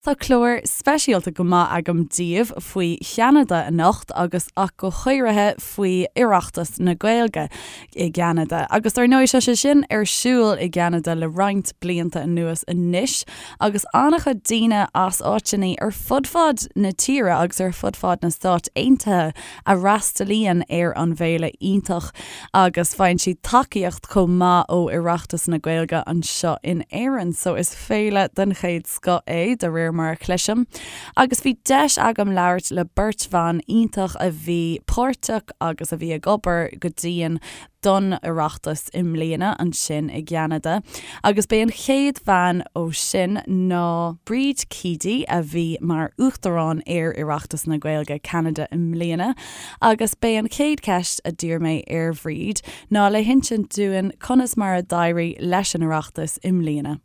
Tá clár speisialta go maith agam daoibh faoi Cheanada anocht agus ach go háirithe faoi Oireachtas na Gaeilge i gCeanada. Agus dar ndóigh tá sé sin ar siúl i gCeanada le roinnt blianta anuas anois agus an-chuid daoine as áiteanna ar fud fad na tíre agus ar fud fad na Stát Aontaithe a fhreastalaíonn ar an bhféile iontach agus faigheann siad tacaíocht chomh maith ó Oireachtas na Gaeilge anseo in Éirinn. So is féile den chéad scoth é, de réir mar a chloisim, agus bhí deis agam labhairt le beirt bhan iontach a bhí páirteach agus a bhí ag obair go dian don Oireachtas i mbliana ansin i gCeanada. Agus b'é an chéad bhean ó sin ná Bríd Keady a bhí mar Uachtarán ar Oireachtas na Gaeilge Ceanada i mbliana. Agus b'é an chéad cheist a d'iarr mé ar Bhríd ná le hinsint dúinn conas mar a d'éirigh leis an Oireachtas i mbliana.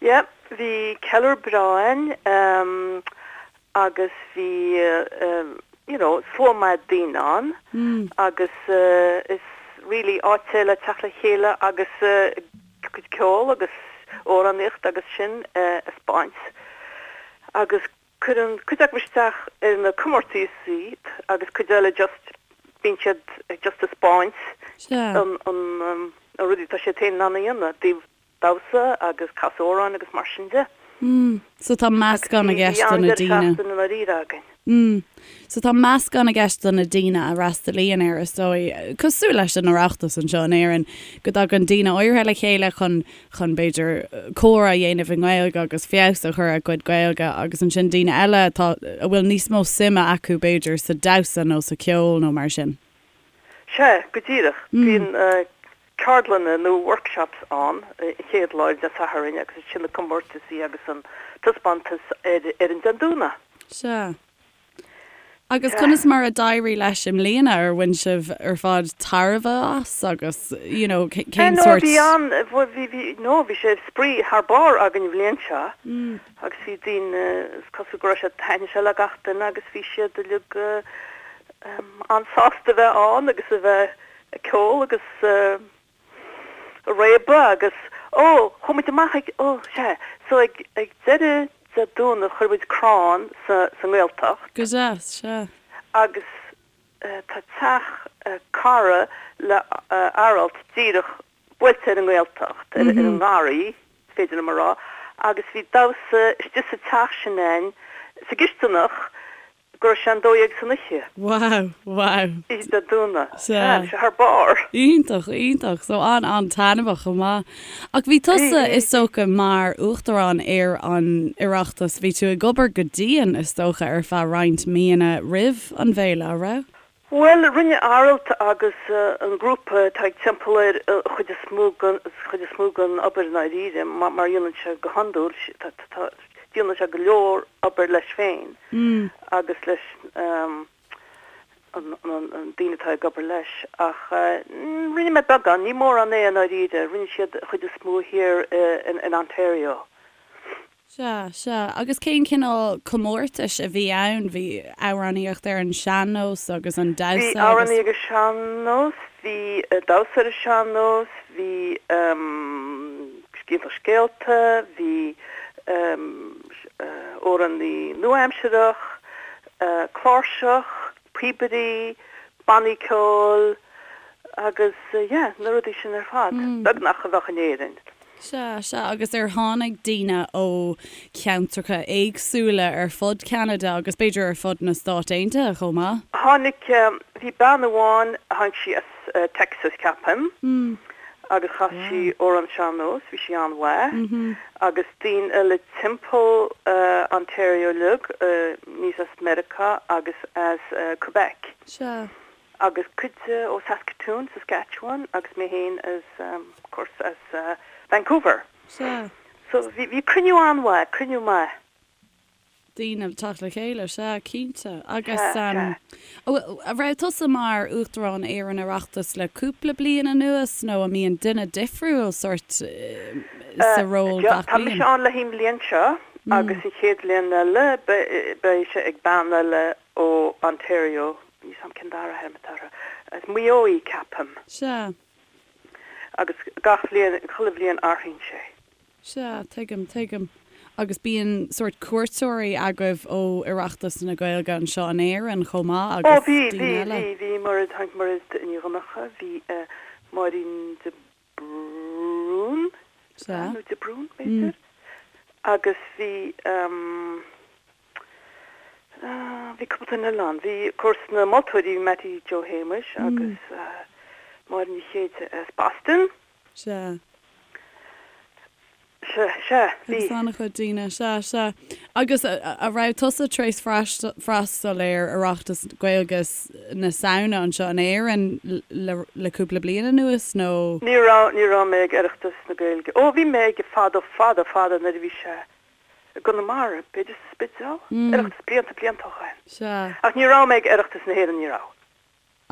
Yeah, bhí ceiliúradh breá ann agus bhí you know slua maith daoine ann agus is really áit é le teacht le chéile agus cuid ceol agus amhránaíocht agus sin a 'speáint agus cuireann cuid acu isteach ar na comórtaisí agus cuid eile just bíonn siad just ag 'speáint an an na rudaí atá siad féin in ann a dhéanamh dtaobh damhsa agus casadh amhráin agus mar sin de. Mm. So tá meascán i gceist do na daoine. Bhí an-deireadh seachtaine i ndáiríre againn. Mm. So tá meascán i gceist do na daoine a fhreastalaíonn air, is dóigh, cosúil leis an Oireachtas anseo in Éirinn, go dtagann daoine áirithe le chéile chun, chun b'fhéidir, comhrá a dhéanamh i nGaeilge agus feabhas a chur ar a gcuid Gaeilge agus ansin daoine eile atá, a bhfuil níos mó suime acu b'fhéidir sa damhsa nó sa cheol nó mar sin. Sea, go díreach. Bíonn ceardlanna nó workshops ann an chéad lá ar Dé Sathairn agus ansin na comórtaisí agus an taispeántas ar ar an Dé Domhnaigh. Sea. Agus conas mar a d'éirigh leis i mbliana? Ar bhain sibh ar fad tairbhe as agus you know cén No sórt. bhí an, bhí, bhí, no bhí sé spraoi thar barr againn an bhliain seo agus bhí daoine, is cosúil go raibh sé, thaitin sé le gach duine agus bhí siad uilig an-sásta a bheith ann agus a bheith ag ceol agus ag réabadh agus, ó, chuaigh muid amach ag, ó, sea, so ag, ag deireadh Dé Domhnaigh chuir muid crann sa, sa nGaeltacht. Go deas, sea. Agus tá teach cara le Aralt díreach buailte ar an nGaeltacht, ar an ngarraí, is féidir liom a rá, agus bhí damhsa istigh sa teach sin a'inn, sa gcisteanach, go raibh sé an 12 san oíche. Wow, wow. Oíche Dé Domhnaigh. Sea, bhí sé thar barr. Iontach, iontach. So an-an-taitneamhach chomh maith. Ach bhí tusa, is dócha, mar Uachtarán ar an Oireachtas, bhí tú ag obair go dian, is dócha, ar feadh roinnt míonna roimh an bhféile, a' raibh? Bhuel, rinne Aralt agus an grúpa atá ag timpeall air an chuid is mó den, chuid is mó den obair i ndáiríre, mar a dhéanann sé go hiondúil, tá, tá, déanann sé go leor obair leis féin agus leis an, an daoine atá ag obair leis. Ach rinne mé beagán, ní mórán é i ndáiríre, rinne siad an chuid is mó thiar in Ontario. Sea, sea. Agus cén cineál comórtais a bhí ann? Bhí amhránaíocht ar an sean-nós agus an damhsa agus. Bhí amhránaíocht ar an sean-nós, bhí damhsa ar an sean-nós, bhí scéalta scéalta, bhí amhránaí nua-aimsearach, cláirseach, píobairí, bannaí ceoil agus yeah, na rudaí sin ar fad, beagnach a bheadh in Éirinn. Sea, sea, agus ar tháinig daoine ó cheantracha éagsúla ar fud Cheanada agus b'fhéidir ar fud na Stát Aontaithe chomh maith? Tháinig, bhí bean amháin, tháinig sí as Texas ceapaim, agus chas sí amhrán sean-nós, bhí sí an-mhaith, agus daoine eile timpeall Ontario uilig, níos as Meiriceá agus as Quebec. Sea. agus cuid ó Saskatoon, Saskatchewan agus mé féin as, of course, as Vancouver. Sea. So bhí, bhí cruinniú an-mhaith, cruinniú maith. daoine ag teacht le chéile, sea, cinnte. Agus an raibh tusa mar Uachtarán ar an Oireachtas le cúpla bliain anuas nó an mbíonn duine difriúil sórt sa ról gach bliain? Tá mise ann le haghaidh an bhliain seo agus an chéad bhliain eile beidh sé ag bean eile ó Ontario, níl 's a'm cén dara hainm atá uirthi, as Maigh Eo í, ceapaim. Sea. Agus gach bhliain, chuile bhliain athraíonn sé. Sea, tuigim, tuigim. Agus bíonn sórt cuairteoirí agaibh ó Oireachtas na Gaeilge anseo in Éirinn chomh maith agus Ó bhí, bhí, daoine eile? bhí, bhí Mairéad, tháinig Mairéad Ní Dhonncha, bhí Máirín de Brún, Sea. nó de Brún, b'fhéidir, agus bhí, bhí cúpla duine eile ann. Bhí, of course, na moltóirí, bhí Mattie Joe Shéamuis agus Máire Ní Chéide as Boston. Sea. Sea, sea, bhí. Agus an-chuid daoine, sea, sea. Agus a raibh tusa tar éis freastal ar Oireachtas Gaeilge na Samhna anseo in Éirinn le cúpla bliain anuas, nó? Ní raibh, ní raibh mé ag Oireachtas na Gaeilge. Ó, bhí mé aige fadó, fada, fada nuair a bhí sé i gConamara, b'fhéidir sa Spidéal? Oireachtas blianta, blianta ó shoin. Sea. Ach ní raibh mé ag Oireachtas na hÉireann, ní raibh.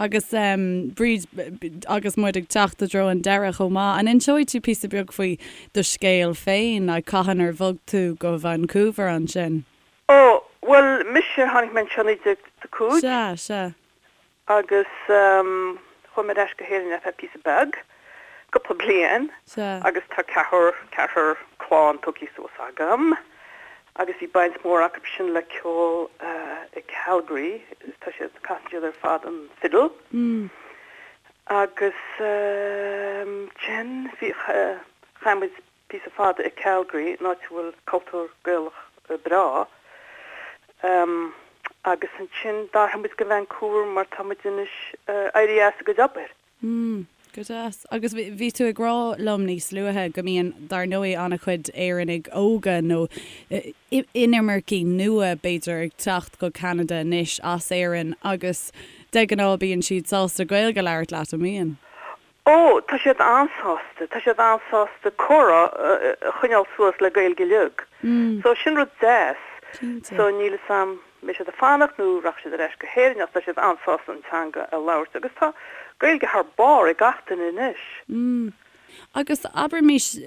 Agus Bríd, agus muid ag teacht i dtreo an deireadh chomh maith, an inseoidh tú píosa beag faoi do scéal féin, like cathain ar bhog tú go Vancouver ansin? Ó, bhuel, mise, tháinig mé anseo 1985. Sea, sea. Agus chuaigh mé ar ais go hÉirinn ar feadh píosa beag, cúpla bliain. Sea. Agus tá ceathrar, ceathrar clann tógtha suas agam. Agus bhí baint mhór acu sin le ceol i Calgary, tá siad, casann siad ar fad an fiddle. Agus ansin bhí, chaith muid píosa fada i Calgary, in áit a bhfuil cultúr Gaelach breá. Agus ansin d'athraigh muid go Vancouver mar tá muid anois éirithe as a gcuid obair. Mm, go deas. Agus bhí tú ag rá liom níos luaithe go mbíonn, dar ndóigh, an-chuid Éireannaigh óga nó inimircigh nua, b'fhéidir, ag teacht go Ceanada anois as Éirinn agus de ghnáth bíonn siad sásta Gaeilge a labhairt leat, an mbíonn? Ó, tá siad an-sásta, tá siad an-sásta comhrá a choinneáil suas le Gaeilge uilig. So sin rud deas. Cinnte. So níl 'fhios a'm mbeidh siad ag fanacht nó rachaidh siad ar ais go hÉirinn ach tá siad an-sásta an teanga a labhairt agus tá Gaeilge thar barr ag gach duine anois. Mm. Agus abraimis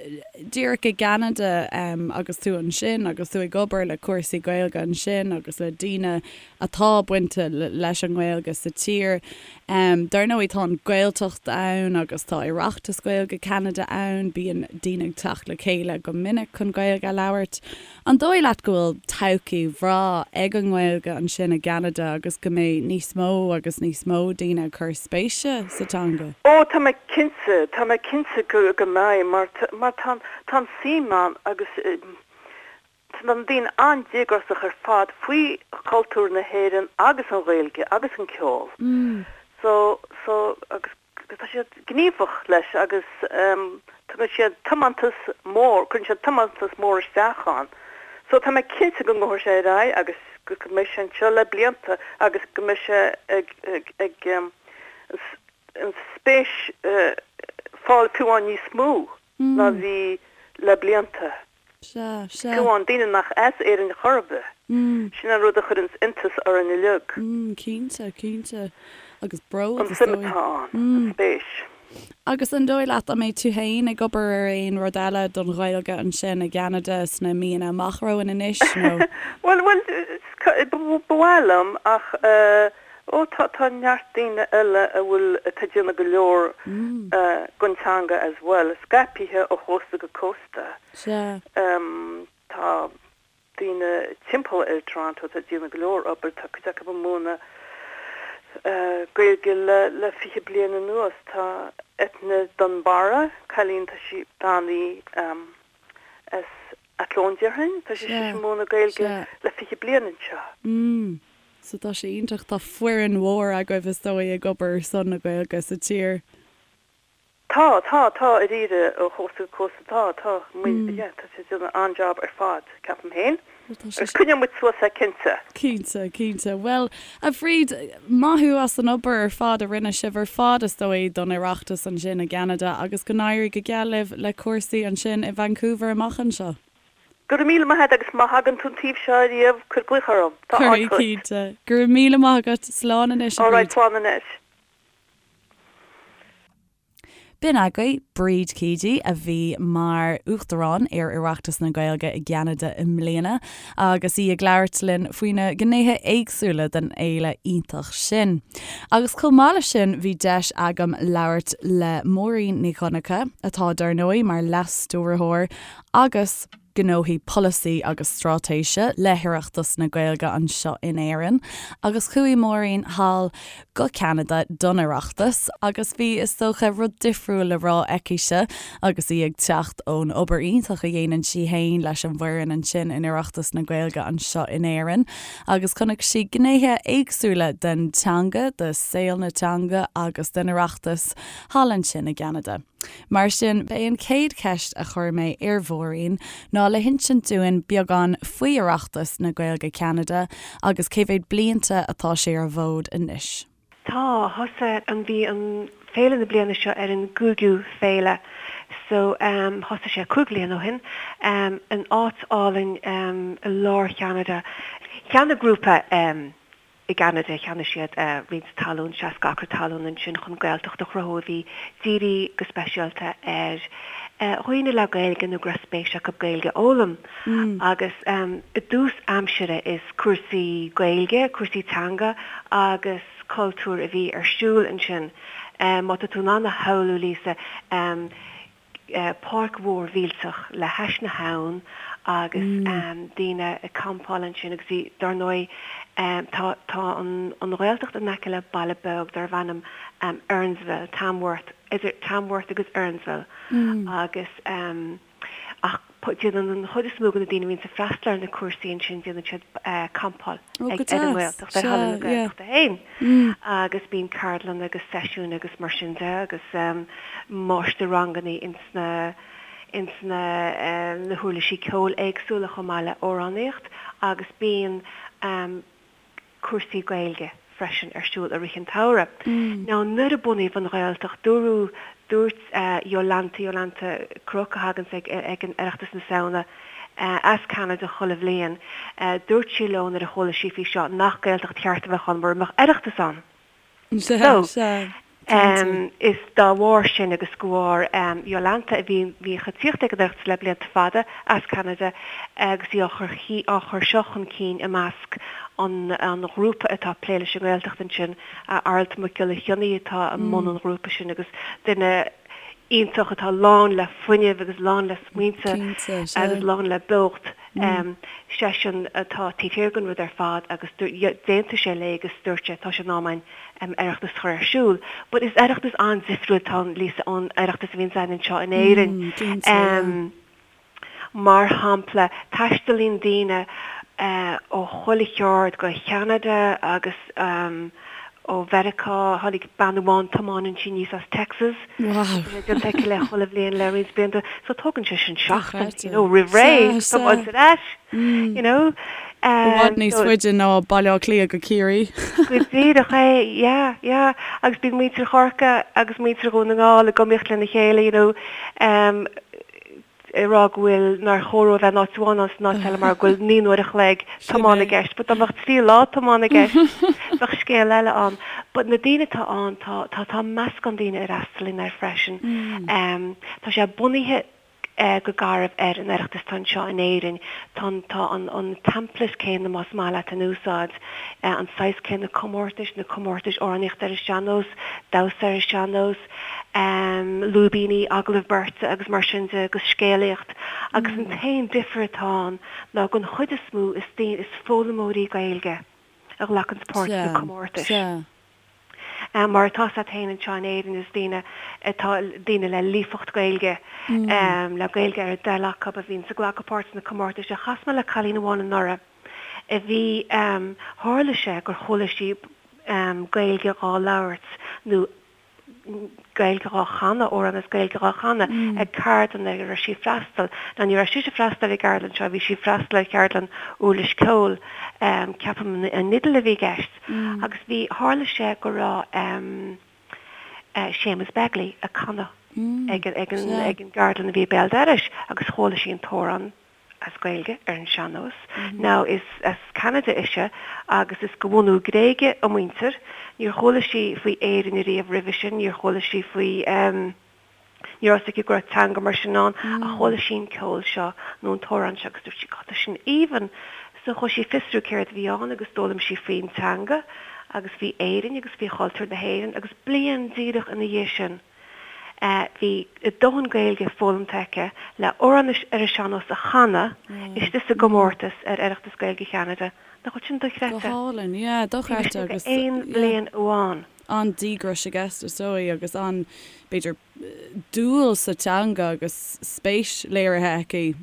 díreach i gCeanada agus tú ansin agus tú ag obair le cúrsaí Gaeilge ansin agus le daoine atá bainte leis an nGaeilge sa tír. Dar ndóigh tá an Ghaeltacht ann agus tá Oireachtas Gaeilge Cheanada ann, bíonn daoine ag teacht le chéile go minic chun Gaeilge a labhairt. An dóigh leat go bhfuil todhchaí bhreá ag an nGaeilge ansin i gCeanada agus go mbeidh níos mó agus níos mó daoine ag cur spéise sa teanga? Ó, tá mé cinnte, tá mé cinnte go, go mbeidh mar, mar tá, tá an suim ann agus tá na daoine an-díograiseach ar fad faoi chultúr na hÉireann agus an Ghaeilge agus an ceol. So, so, agus Tá siad gníomhach leis agus tugann siad tiomantas mór, cuireann siad tiomantas mór isteach ann. So tá mé cinnte go ngabhfaidh sé ar aghaidh agus go mbeidh sé anseo le blianta agus go mbeidh sé ag ag an spéis fáil fiú amháin níos mó ná bhí le blianta. Sea, sea. Fiú amháin daoine nach as Éirinn chor ar bith. Sin an rud a chuireanns iontas orainn uilig. Cinnte, cinnte. Agus bród, An is suim dóigh. atá ann, an spéis. Agus an dóigh leat, an mbeidh tú féin ag obair ar aon rud eile don Ghaeilge ansin i gCeanada sna míonna amach romhainn anois, nó? Bhuel, bhuel, ba mhaith liom ach eh, ó tá, tá neart daoine eile a bhfuil, atá ag déanamh go leor don teanga as well, scaipthe ó chósta go cósta. Sea. Tá daoine timpeall ar Toronto atá ag déanamh go leor obair, tá cuid acu ag múineadh Gaeilge le le 20 bliain anuas. Tá Eithne Dunbarra, cailín, tá sí, bean í as Athlone déarfainn, tá sí ag múineadh Gaeilge le 20 bliain anseo. Mm. So tá sé iontach, tá foireann mhór agaibh is dóigh ag obair ar son na Gaeilge sa tír. Tá, tá, tá, i ndáiríre, ó chósta go cósta, tá, tá, muid, yeah, tá siad ag déanamh an-job ar fad, ceapaim féin. Agus coinneoidh muid suas é, cinnte. Cinnte, cinnte. Bhuel, a Bhríd, maith thú as an obair ar fad a rinne sibh ar fad, is dóigh, don Oireachtas ansin i gCeanada agus go n-éirí go geal libh le cúrsaí ansin i Vancouver amach anseo. Go raibh míle maith agat agus má thagann tú an taobh seo ariamh, cuir glaoch orm. Tá áit Cuirfidh, duit. cinnte. Go raibh míle maith agat. Slán anois, a All right, Bhríd. slán anois. B'in agaibh Bríd Keady a bhí mar Uachtarán ar Oireachtas na Gaeilge i gCeanada i mbliana agus í ag labhairt linn faoi na gnéithe éagsúla den fhéile iontach sin. Agus chomh maith leis sin bhí deis agam labhairt le Máirín Ní Dhonncha, atá dar ndóigh mar Leas-Stiúrthóir agus. gnóthaí polasaí agus straitéise le hOireachtas na Gaeilge anseo in Éirinn agus chuaigh Máirín thall go Ceanada don Oireachtas agus bhí, is dócha, rud difriúil le rá aicise agus í ag teacht ón obair iontach a dhéanann sí fhéin leis an bhfoireann ansin in Oireachtas na Gaeilge anseo in Éirinn agus chonaic sí gnéithe éagsúla den teanga, de saol na teanga agus den Oireachtas thall ansin i gCeanada. Mar sin, b'é an chéad cheist a chuir mé ar Mháirín ná le hinsint dúinn beagán faoi Oireachtas na Gaeilge Ceanada agus cé mhéad blianta atá sé ar an bhfód anois. Tá, thosaigh an, bhí an féile na bliana seo ar an gcúigiú féile so thosaigh sé 5 bhliain ó shin in áit álainn i lár Cheanada. Cheannaigh grúpa I gCeanada, cheannaigh siad roinnt talún, 60 acra talún ansin chun Gaeltacht a chruthú a bhí dírithe go speisialta ar dhaoine le Gaeilge nó go raibh spéis acu Gaeilge a fhoghlaim. Agus i dtús aimsire is cúrsaí Gaeilge, cúrsaí teanga agus cultúir a bhí ar siúl ansin. Má tá tú in ann a shamhlú, Lisa, páirc mhór mhillteach le hais na habhann agus daoine ag campáil ansin agus bhí, dar ndóigh, tá tá an an Ghaeltacht in aice le baile beag darbh ainm Earnsville, Tamworth, idir Tamworth agus Earnsville agus ach déanann an chuid is mó de na daoine a bhíonns ag freastal ar na cúrsaí ansin, déanann siad campáil ag ar an nGaeltacht, ar thalamh na Gaeltachta féin. Agus bíonn ceardlanna agus seisiúin agus mar sin de agus máistir-ranganna ins na ins na na huirlisí ceoil éagsúla chomh maith le amhránaíocht agus bíonn cúrsaí Gaeilge freisin ar siúl i rith an tsamhraidh. Now nuair a bunaíodh an Ghaeltacht dúradh, dúirt Jolanta, Jolanta Kruk a thaganns ag ag an Oireachtas na Samhna as Ceanada chuile bhliain, dúirt sí leo nuair a chuala sí faoi seo nach Gaeltacht cheart a bheadh ann mura mbeadh Oireachtas ann. So, Sea, cinnte. Is dá bharr sin agus de bharr Jolanta a bhí bhíodh ag tíocht ag an Oireachtas le blianta fada as Ceanada agus í á chur á chur seo chun cinn i measc an an ghrúpa atá ag plé leis an nGaeltacht ansin, Aralt Mac Giolla Chionnaith atá i mbun an ghrúpa sin agus duine iontach atá lán le fuinneamh agus lán le smaointe agus lán le beocht. Seisean atá taobh thiar den rud ar fad agus d'aontaigh sé léi agus dúirt sé tá sé in am againn Oireachtas a chur ar siúl. But is Oireachtas an-difriúil atá ann, Lisa, ón Oireachtas a bhíonns againn anseo in Éirinn. Mar shampla, taistealaíonn daoine ó chuile cheard go Ceanada agus ó Mheiriceá. Tháinig bean amháin, tiomáineann sí aníos as Texas. Wow. Tá sé déanta aici le chuile bhliain le roinnt blianta. So tógann sé sin seachtain, you know, roimh ré, tiomáint ar ais, you know. I bhfad níos faide ná Baile Átha Cliath go Ciarraí. Go díreach é, yeah, yeah. Agus bíonn muintir Chorcaí agus muintir Dhún na nGall ag iomaíocht lena chéile, you know. ag rá go bhfuil, nár chóir dóibh a bheith in áit amháin ná san áit eile mar go bhfuil 9 n-uair a chloig tiomána i gceist, but dá mbeadh 3 lá tiomána i gceist, bheadh scéal eile ann. But na daoine atá ann, tá, tá, tá meascán daoine a fhreastalaíonn air freisin. Tá sé bunaithe go garbh ar an Oireachtas atá anseo in Éirinn. Tá an, tá an, an template céanna, más maith leat, in úsáid, an saghas céanna comórtais, na comórtais amhránaíochta ar an sean-nós, damhsa ar an sean-nós, lúibíní, agallamh beirte agus mar sin de agus scéalaíocht agus an t-aon difear atá ann ná den chuid is mó is daoine, is foghlaimeoirí Gaeilge a ghlacanns páirt sna comórtais. Mar atá a fhios agat féin anseo in Éirinn is daoine atá, daoine le líofacht Gaeilge, le Gaeilge ar a dtoil acu a bhíonns ag glacadh páirt sna comórtais. Chas mé le cailín amháin anuraidh a bhí, tharla sé gur chuala sí Gaeilge dhá labhairt nó Gaeilge dhá chanadh, amhrán as Gaeilge dhá chanadh ag ceardlann ar a raibh sí ag freastal. Now ní raibh sise ag freastal ar an gceardlann seo, bhí sí ag freastal ar cheardlann uirlis ceoil, ceapaim an fhidil a bhí i gceist. Agus bhí, tharla sé go raibh Séamus Begley ag canadh ag an gceardlann a bhí i béal dorais agus chuala sí an t-amhrán. as Gaeilge ar an sean-nós. Now is as Ceanada ise agus is de bhunú Gréige a muintir. Níor chuala sí faoi Éirinn ariamh roimhe sin, níor chuala sí faoi ehm ní raibh fhios aici go raibh teanga mar sin ann ach chuala sí an ceol seo nó an t-amhrán seo agus dúirt sí God tá sin aoibhinn! So chuaigh sí ag fiosrú céard a bhí ann agus d'fhoghlaim sí faoin teanga agus faoi Éirinn agus faoi chultúr na hÉireann agus bliain díreach ina dhiaidh sin. Bhí a dóthain Gaeilge foghlamtha aici le amhrán ar an sean-nós a chanadh istigh sa gcomórtas ar Oireachtas Gaeilge Cheanada. Nach bhfuil sin dochreidte? Go hálainn, yeah, dochreidte agus, yeah. Aon bhliain amháin. An-díograis i gceist is dóigh agus an, b'fhéidir, dúil sa teanga agus spéis léirithe aici.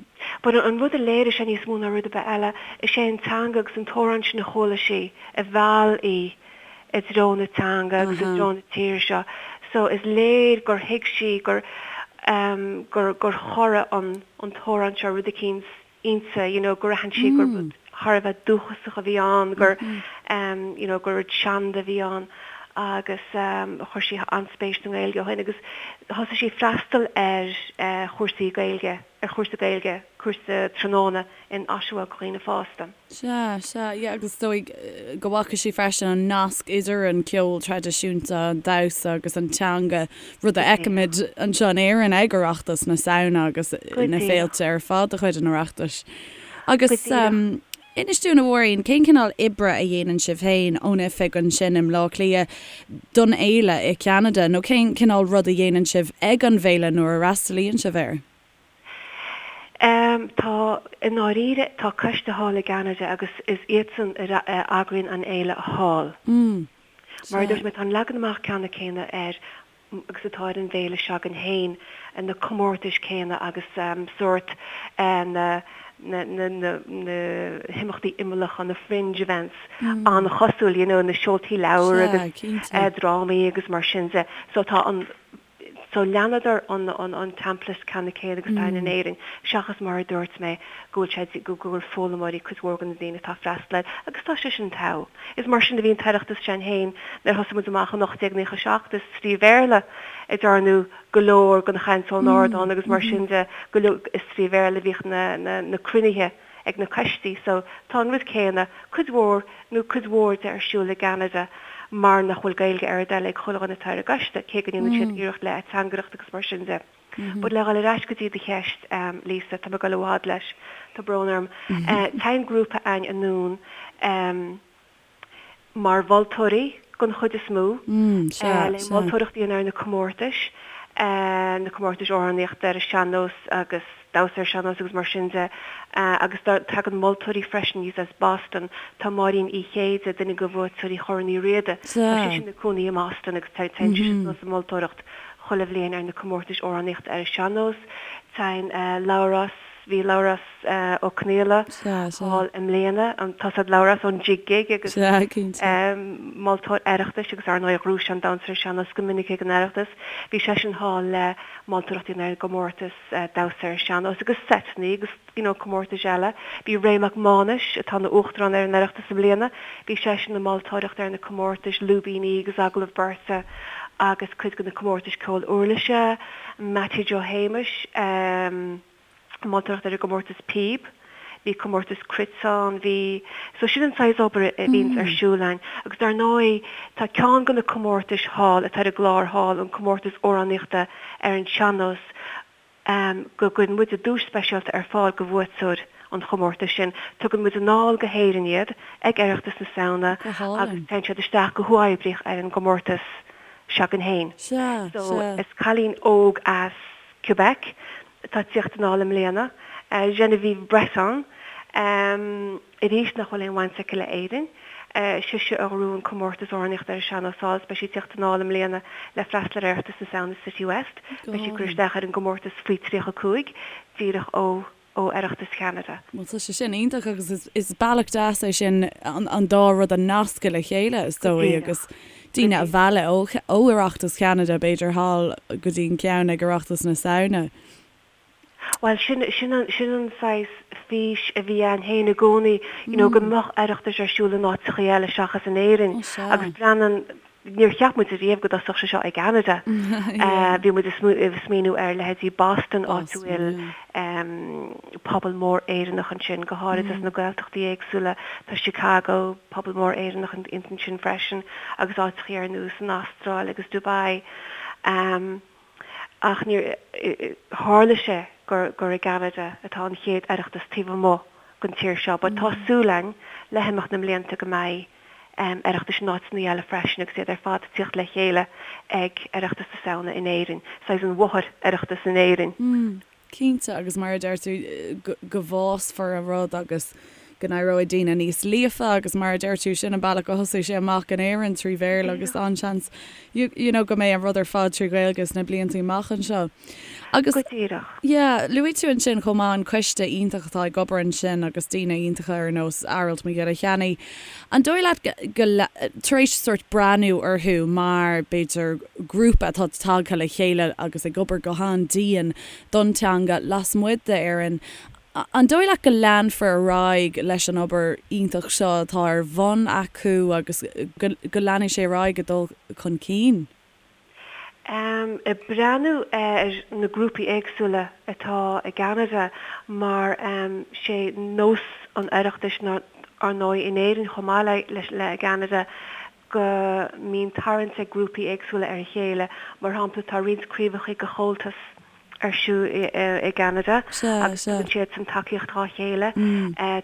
But an rud a léirigh sé níos mó ná rud ar bith eile, is é an teanga agus an t-amhrán sin a chuala sí a mheall í i dtreo na teanga agus i dtreo na tíre seo. So is léir gur thuig sí gur gur gur chorraigh an an t-amhrán seo rud eicínt inti, you know, gur aithin sí gur rud thar a bheith dúchasach a bhí ann, gur you know, gur rud seanda a bhí ann agus chuir sí an-spéis sa nGaeilge ó shin agus thosaigh sí freastal ar chúrsaí Gaeilge, ar chúrsa Gaeilge, cúrsa tráthnóna in Oshawa do dhaoine fásta. Sea, sea, yeah, agus is dóigh go bhfaca sí freisin an nasc idir an ceol traidisiúnta, an damhsa agus an teanga, rud a fheicimid anseo in Éirinn ag Oireachtas na Samhna agus na féilte ar fad de chuid an Oireachtais. Agus inis dúinn, a Mháirín, cén cineál oibre a dhéanann sibh féin ón oifig ansin i mBleá Cliath don fhéile i gCeanada, nó cén cineál rud a dhéanann sibh ag an bhféile nuair a fhreastalaíonn sibh air? Tá, i ndáiríre, tá coiste thall i gCeanada agus is iadsan a eagraíonn an fhéile thall. Mar a dúirt mé, tá an leagan amach ceannann céanna air agus atá ar an bhféile s'againn féin, na comórtais céanna agus sórt na na himeachtaí imeallacha, na fringe events, an-chosúil, you know, na seoltaí leabhar agus drámaí agus mar sin de. So tá an. So leanadar an an template ceannann céanna agus atá in Éirinn, seachas mar a dúirt mé go bhfuil sé go bhfuil foghlaimeoirí cuid mhór de na daoine atá ag freastal air agus tá sé sin togha. Is mar sin a bhí an tOireachtas s'againn féin nuair a thosaigh muid amach in 1897 is trí Bhéarla a dearnadh go leor den chaint ón ardán agus mar sin de go leor is trí Bhéarla a bhíodh na na na cruinnithe ag na coistí so tá an rud céanna, cuid mhór nó cuid mhór de ar siúl i gCeanada mar nach bhfuil Gaeilge ar a dtoil ag chuile dhuine atá ar an gcoiste, cé go ndéanann siad iarracht le ateangaireacht agus mar sin de. But le dhul ar ais go dtí do cheist, Lisa, tá mé ag dul i bhfad leis, tá brón orm. Téann grúpa againn anonn mar mholtóirí den chuid is mó, le moltóireacht a dhéanamh ar na comórtais, na comórtais amhránaíochta ar an sean-nós agus damhsa ar sean-nós agus mar sin de, agus tagann moltóirí freisin aníos as Boston. Tá Máirín Uí Chéide, duine de bhuaiteoirí Chorn Uí Riada, tá sise ina cónaí i mBoston agus téann sise suas ag moltóireacht chuile bhliain ar na comórtais amhránaíochta ar an sean-nós. Téann Labhrás, bhí Labhrás Ó Conaola thall i mbliana, tá a fhios a'd Labhrás ón Jig Gig agus moltóir Oireachtais agus ar ndóigh ghnóthaigh sé an damhsa ar an sean-nós go minic ag an Oireachtas. Bhí seisean thall le moltóireacht a dhéanamh ar an gcomórtas damhsa ar an sean-nós agus seiteanna agus you know comórtais eile. Bhí Ray Mac Mánais, atá ina Uachtarán ar an Oireachtas i mbliana, bhí seisean ag moltóireacht ar na comórtais lúibíní agus agallamh beirte agus cuid de na comórtais ceol uirlise, Mattie Joe Shéamais, moltóireacht ar an gcomórtas píob, bhí comórtas cruit ann, bhí, so sin an saghas obair a bhíonns ar siúl againn. Agus dar ndóigh tá ceann de na comórtais thall atá ar an gclár thall, an comórtas amhránaíochta ar an sean-nós, go gcuireann muide duais speisialta ar fáil do bhuaiteoir an chomórtais sin. Tugann muid anall go hÉirinn iad ag Oireachtas na Samhna agus téann siad isteach go huathoibríoch ar an gcomórtas s'againn féin. So is cailín óg as Quebec atá ag tíocht anall i mbliana, Genevieve Breton, arís nach bhfuil aon bhaint aici le Éirinn. Sise a ghnóthaigh an comórtas amhránaíochta ar an sean-nós thall is beidh sí ag tíocht anall i mbliana le freastal ar Oireachtas na Samhna City West. Beidh sí ag cur isteach ar an gcomórtas faoi 35, díreach ó ó Oireachtas Cheanada. Bhuel tá sé sin iontach agus is bealach deas é sin an dá rud a nascadh le chéile is dóigh agus daoine a mhealladh ó Oireachtas Cheanada b'fhéidir thall go dtí an ceann ag Oireachtas na Samhna. Bhuel sin sin an sin an saghas fís a bhí ann féin i gcónaí you know go mbeadh Oireachtais ar siúl in áiteachaí eile seachas in Éirinn agus breathnaíonn Níor cheap muid ariamh go dtosódh sé seo i gCeanada. Bhí muid ag smaoineamh ar leithéidí Boston, áit a bhfuil pobal mór Éireannach ansin, go háirid as na Gaeltachtaí éagsúla. Tá Chicago, pobal mór Éireannach ansin freisin, agus áiteachaí ar nós an Astráil agus Dubai. Ach níor tharla sé gur gur i gCeanada atá an chéad Oireachtas taobh amuigh den tír seo. But tá súil againn le himeacht na mblianta go mbeidh. Oireachtais in áiteanna eile freisin agus iad ar fad ag tíocht le chéile ag Oireachtas na Samhna in Éirinn, saghas an mháthair-Oireachtas in Éirinn. Cinnte, agus mar a deir tú, go bhfásfar an rud agus go n-éireoidh daoine níos líofa agus mar a deir tú, sin an bealach a thosaigh sé amach in Éirinn trí Bhéarla agus an-seans you know go mbeidh an rud ar fad trí Ghaeilge sna blianta amach anseo. Agus Go díreach. yeah, luaigh tú ansin chomh maith an coiste iontach atá ag obair ansin agus daoine iontacha ar nós Aralt Mac Giolla Chainnigh. An dóigh leat go, tar éis sórt breathnú orthu mar, b'fhéidir, grúpa atá tagtha le chéile agus ag obair go han-dian don teanga lasmuigh d'Éirinn, an dóigh leat go leanfar ar aghaidh leis an obair iontach seo atá ar bhun acu agus go leanfaidh sé ar aghaidh ag dul chun cinn? Ag breathnú ar na grúpaí éagsúla atá i gCeanada mar sé nós an Oireachtais ar ndóigh in Éirinn chomh maith le i gCeanada go mbíonn tarraingt ag grúpaí éagsúla ar a chéile. Mar shampla tá roinnt craobhacha de Chomhaltas ar siúl i gCeanada agus tugann siadsan tacaíocht dhá chéile.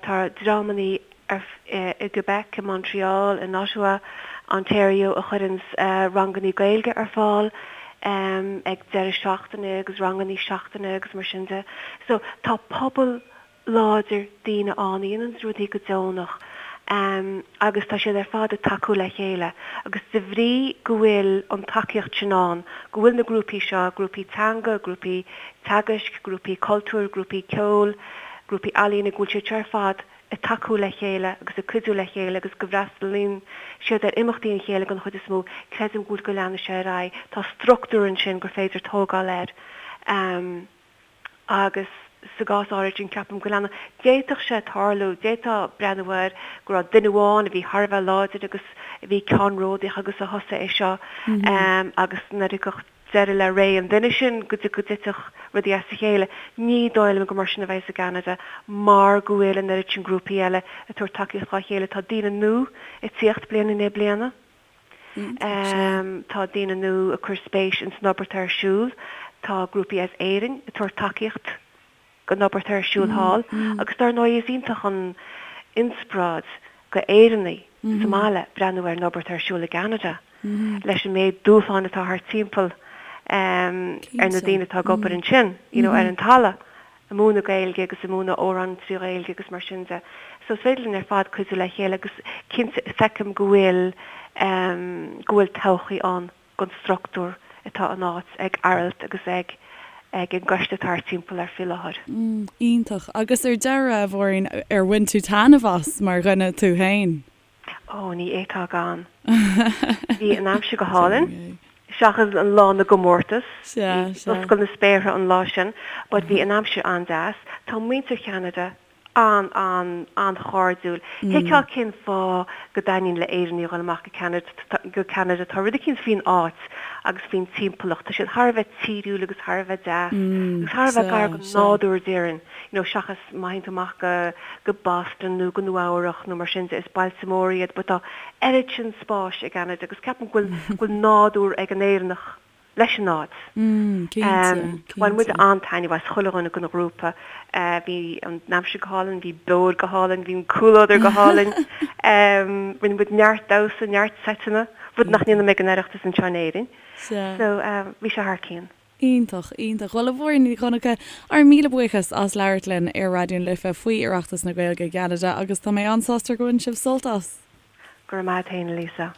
Tá dreamannaí i gQuebec, i Montreal, in Ottawa, Ontario a chuireanns rangannaí Gaeilge ar fáil ag deireadh seachtaine agus rangannaí seachtaine agus mar sin de. So tá pobal láidir daoine ann a dhéananns rudaí go deonach agus tá siad ar fad ag tacú le chéile agus de bhrí go bhfuil an tacaíocht sin ann, go bhfuil na grúpaí seo, grúpaí teanga, grúpaí teagaisc, grúpaí cultúir, grúpaí ceoil, grúpaí ealaíne, go bhfuil siad seo ar fad ag tacú le chéile agus ag cuidiú le chéile agus go bhfreastalaíonn siad ar imeachtaí an chéile den chuid is mó, creidim go bhfuil go leanfaidh sé ar aghaidh. Tá struchtúr ansin gur féidir tógáil air. Agus sa gcás áirid sin, ceapaim go leanfaidh. D'fhéadfadh sé tarlú, d'fhéadfá breathnú air go raibh duine amháin a bhí thar a bheith láidir agus a bhí ceannródaíoch agus a thosaigh é seo agus nuair a thiocfadh deireadh le ré an duine sin go dtitfeadh rudaí as a chéile. Ní dóigh liom gur mar sin a bheas i gCeanada mar go bhfuil an oiread sin grúpaí eile ag tabhairt tacaíocht dhá chéile. Tá daoine nua ag tíocht bliain i ndiaidh bliana. Tá daoine nua ag cur spéis ins an obair atá ar siúl. Tá grúpaí as Éirinn ag tabhairt tacaíocht don obair atá ar siúl thall agus dar ndóigh is iontach an inspioráid go Éireannaigh sa mbaile breathnú ar an obair atá ar siúl i gCeanada leis an méid dúshláin atá thart timpeall ar na daoine atá ag obair ansin, you know, ar an talamh. ag múineadh Gaeilge agus ag múineadh amhrán trí Ghaeilge agus mar sin de. So is féidir linn ar fad cuidiú le chéile agus cinnte feicim go bhfuil em go bhfuil todhchaí ann don struchtúr atá in áit ag Aralt agus ag ag an gcoiste atá thart timpeall air faoi láthair. Mm, iontach. Agus ar deireadh, a Mháirín, ar bhain tú taitneamh as mar dhuine tú féin? Ó, ní fhéadfá gan. Bhí an aimsir go hálainn, seachas an lá na gcomórtas. D'oscail na spéartha an lá sin, but bhí an aimsir an-deas. Tá muintir Cheanada an, an, an-chairdiúil. Thuigfeá cén fáth go dtaitníonn le Éireannaigh a dhul amach go Ceanada, go Ceanada. Tá rud eicínt faoin áit agus faoin timpeallacht. Tá siad thar a bheith tíriúil agus thar a bheith deas agus thar a bheith gar don nádúr, déarfainn. you know seachas má théann tú amach go go Boston nó go Nua Eabhrach nó mar sin de, is bailte móra iad but tá oiread sin spáis i gCeanada agus ceapaim go bhfuil go bhfuil nádúr ag an Éireannach leis an áit. Mm, cinnte, Bhain muid an-taitneamh as, chuile dhuine den ghrúpa. Bhí an aimsir go hálainn, bhí beoir go hálainn, bhí an comhluadar go hálainn. Rinne muid neart damhsa, neart seiteanna, rud nach ndéanaim ag an Oireachtas anseo in Éirinn. So bhí sé thar cionn. Iontach, iontach. Bhuel, a Mháirín Ní Dhonncha, ár míle buíochas as labhairt linn ar Raidió na Life faoi Oireachtas na Gaeilge i gCeanada agus tá mé an-sásta gur bhain sibh sult as. Go raibh maith a't fhéin, a Lisa.